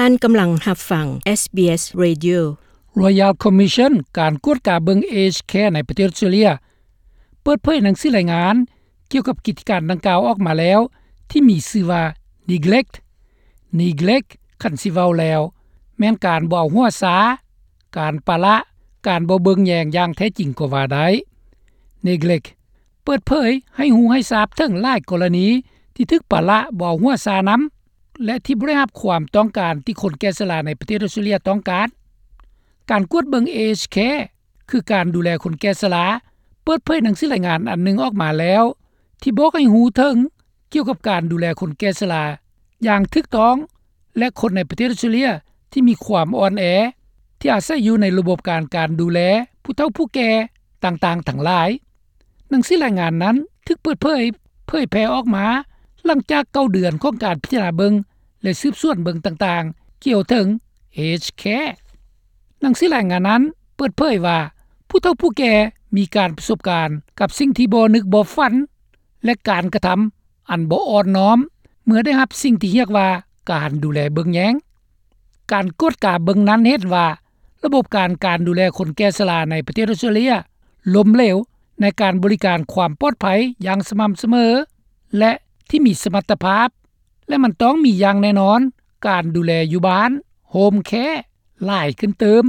ທ່ານກຳລັງຮັບຟັງ SBS Radio. Royal Commission ການກວດກາເບິ່ງ Aged Care ໃນປະເທດອອສເຕຣເລັຍ ເປີດເຜີຍໜັງສືລາຍງານກ່ຽວກັບກິດຈະການດັ່ງກ່າວອອກມາແລ້ວ ທີ່ມີຊື່ວ່າ Neglect. Neglect ຄັນຊິເວົ້າແລ້ວ ແມ່ນການບໍ່ເອົາຫົວຊາ, ການປະລະ, ການບໍ່ເບິ່ງແຍງຢ່າງແທ້ຈິງກໍວ່າໄດ້. Neglect ເປີດເຜີຍໃຫ້ຮູ້ໃຫ້ຊາບເຖິງຫຼາຍກໍລະນີທີ່ຖືກປະລະບໍ່ເອົາຫົວຊານຳ ແລະ ທີ່ບໍ່ໄດ້ຮັບຄວາມຕ້ອງການທີ່ຄົນແກ່ຊະລາໃນປະເທດອອສເຕຣເລັຍຕ້ອງການ. ການກວດເບິ່ງ Aged Care ຄືການດູແລຄົນແກ່ຊະລາ ເປີດເຜີຍໜັງສືລາຍງານອັນໜຶ່ງອອກມາແລ້ວ ທີ່ບອກໃຫ້ຮູ້ເຖິງກ່ຽວກັບການດູແລຄົນແກ່ຊະລາຢ່າງຖືກຕ້ອງ ແລະ ຄົນໃນປະເທດອອສເຕຣເລັຍທີ່ມີຄວາມອ່ອນແອ ທີ່ອາໄສຢູ່ໃນລະບົບການ ການດູແລຜູ້ເຖົ້າຜູ້ແກ່ຕ່າງໆທັງຫຼາຍ. ໜັງສືລາຍງານນັ້ນຖືກເປີດເຜີຍ ເຜີຍແຜ່ອອກມາຫຼັງຈາກເກົ້າເດືອນຂອງການພິຈາລະນາເບິ່ງ ແລະ ສືບສວນເບິ່ງຕ່າງໆກ່ຽວເຖິງ Aged Care. ໜັງສືລາຍງານນັ້ນເປີດເຜີຍວ່າ ຜູ້ເຖົ້າຜູ້ແກ່ມີການປະສົບການກັບສິ່ງທີ່ບໍ່ນຶກບໍ່ຝັນ ແລະ ການກະທຳອັນບໍ່ອ່ອນນ້ອມ ເມື່ອໄດ້ຮັບສິ່ງທີ່ຮຽກວ່າການດູແລເບິ່ງແຍງ. ການກວດກາເບິ່ງນັ້ນເຫັນວ່າ ລະບົບການ ການດູແລຄົນແກ່ຊະລາໃນປະເທດອອສເຕຣເລັຍລົ້ມເຫຼວໃນການບໍລິການຄວາມປອດໄພຢ່າງສະໝ່ຳສະເໝີ ແລະ ທີ່ມີສະມັດຕະພາບ ແລະ ມັນຕ້ອງມີຢ່າງແນ່ນອນການດູແລຢູ່ບ້ານ Home Care ຫຼາຍຂຶ້ນຕື່ມ.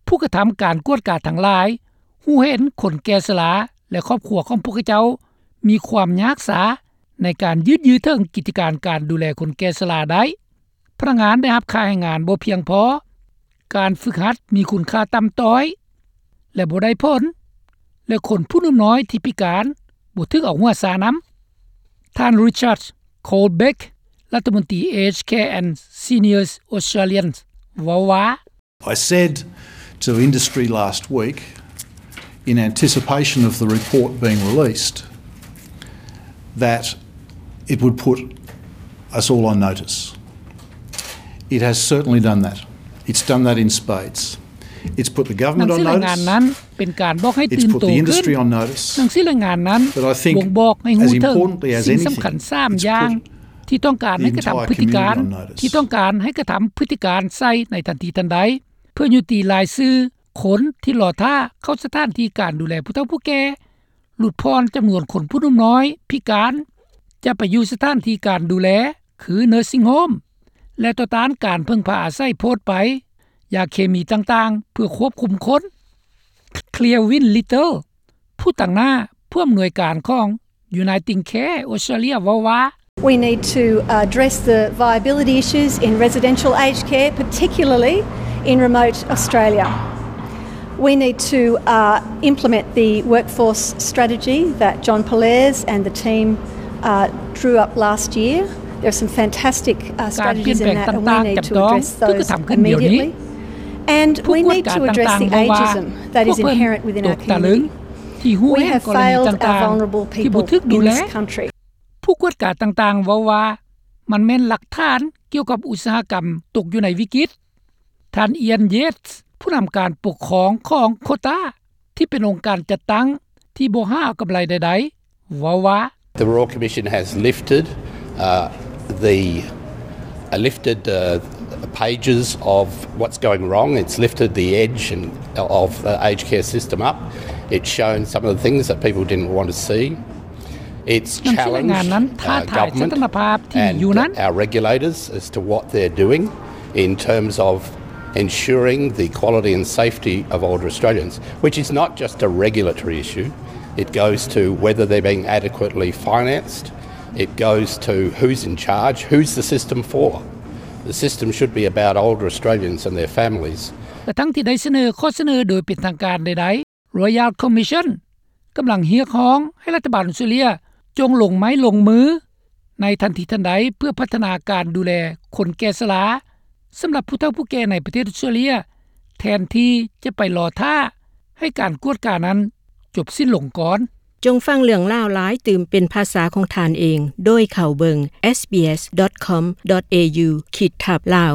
ຜູ້ກະທຳການກວດກາທັງຫຼາຍຮູ້ເຫັນຄົນແກ່ຊະລາ ແລະ ຄອບຄົວຂອງພວກເຂົາເຈົ້າມີຄວາມຍາກສາໃນການຢືດເຖິງກິດຈະການ ການດູແລຄົນແກ່ຊະລາໄດ້. ພະນັກງານໄດ້ຮັບຄ່າແຮງງານບໍ່ພຽງພໍ, ການຝຶກຫັດມີຄຸນຄ່າຕ່ຳຕ້ອຍ ແລະ ບໍ່ໄດ້ຜົນ ແລະ ຄົນຜູ້ໜຸ່ມນ້ອຍທີ່ພິການບໍ່ຖືກເອົາຫົວຊານຳ. ທ່ານ Richard Colbeck ລັດຖະມົນຕີ Aged Care and Seniors Australians ເວົ້າວ່າ, I said to industry last week, in anticipation of the report being released, that it would put us all on notice. It has certainly done that. It's done that in spades. It's put the government on notice. ໜັງສືລາຍງານນັ້ນເປັນການບອກໃຫ້ຕື່ນໂຕຂຶ້ນ. ໜັງສືລາຍງານນັ້ນບົ່ງບອກໃຫ້ຮູ້ເຖິງສິ່ງສຳຄັນສາມຢ່າງ ທີ່ຕ້ອງການໃຫ້ກະທຳພຶດຕິການ ທີ່ຕ້ອງການໃຫ້ກະທຳພຶດຕິການໃສ່ໃນທັນທີທັນໃດ ເພື່ອຍຸຕິລາຍຊື່ຄົນທີ່ລໍຖ້າເຂົ້າສະຖານທີ່ການດູແລຜູ້ເຖົ້າຜູ້ແກ່, ຫຼຸດຜ່ອນຈຳນວນຄົນຜູ້ໜຸ່ມນ້ອຍພິການຈະໄປຢູ່ສະຖານທີ່ການດູແລ ຄື nursing home ແລະ ຕໍ່ຕ້ານການເພິ່ງພາອາໄສໂພດໄປ, ຢາເຄມີຕ່າງໆ ເພື່ອຄວບຄຸມຄົນ. Clearwin Little ຜູ້ຕາງໜ້າຜູ້ອຳນວຍການຂອງ Uniting Care Australia ເວົ້າວ່າ, We need to address the viability issues in residential aged care, particularly in remote Australia. We need to, uh, implement the workforce strategy that John Pollaers and the team, uh, drew up last year. There are some fantastic, uh, strategies in that, and we need to address those immediately. And we need to address the ageism that is inherent within our community. We have failed our vulnerable people in this country. ຜູ້ກວດກາຕ່າງໆເວົ້າວ່າ ມັນແມ່ນຫຼັກຖານກ່ຽວກັບອຸດສາຫະກຳຕົກຢູ່ໃນວິກິດ. ທ່ານ Ian Yates ຜູ້ນຳການປົກຄອງຂອງ COTA ທີ່ເປັນອົງການຈັດຕັ້ງທີ່ບໍ່ຫາເອົາກຳໄລໃດໆ ເວົ້າວ່າ, The Royal Commission has lifted, uh, the, uh, lifted, uh, pages of what's going wrong. It's lifted the edge and, of, uh, aged care system up. It's shown some of the things that people didn't want to see. It's challenged, uh, government and, uh, our regulators as to what they're doing in terms of ensuring the quality and safety of older Australians, which is not just a regulatory issue. It goes to whether they're being adequately financed. It goes to who's in charge, who's the system for. The system should be about older Australians and their families. ກະທັງທີ່ໄດ້ສະເໜີຂໍ້ສະເໜີໂດຍເປັນທາງການໃດໆ, Royal Commission ກຳລັງຮຽກຮ້ອງໃຫ້ລັດຖະບານອອສເຕຣເລັຍຈົ່ງລົງໄມ້ລົງມືໃນທັນທີທັນໃດ ເພື່ອພັດທະນາການດູແລຄົນແກ່ຊະລາ ສຳລັບຜູ້ເຖົ້າຜູ້ແກ່ໃນປະເທດອອສເຕຣເລັຍ ແທນທີ່ຈະໄປລໍຖ້າໃຫ້ການກວດການັ້ນຈົບສິ້ນລົງກ່ອນ. ຈົ່ງຟັງເລື່ອງລາວຫຼາຍຕື່ມເປັນພາສາຂອງທ່ານເອງ ໂດຍເຂົ້າເບິ່ງ sbs.com.au ຂີດທັບ Lao.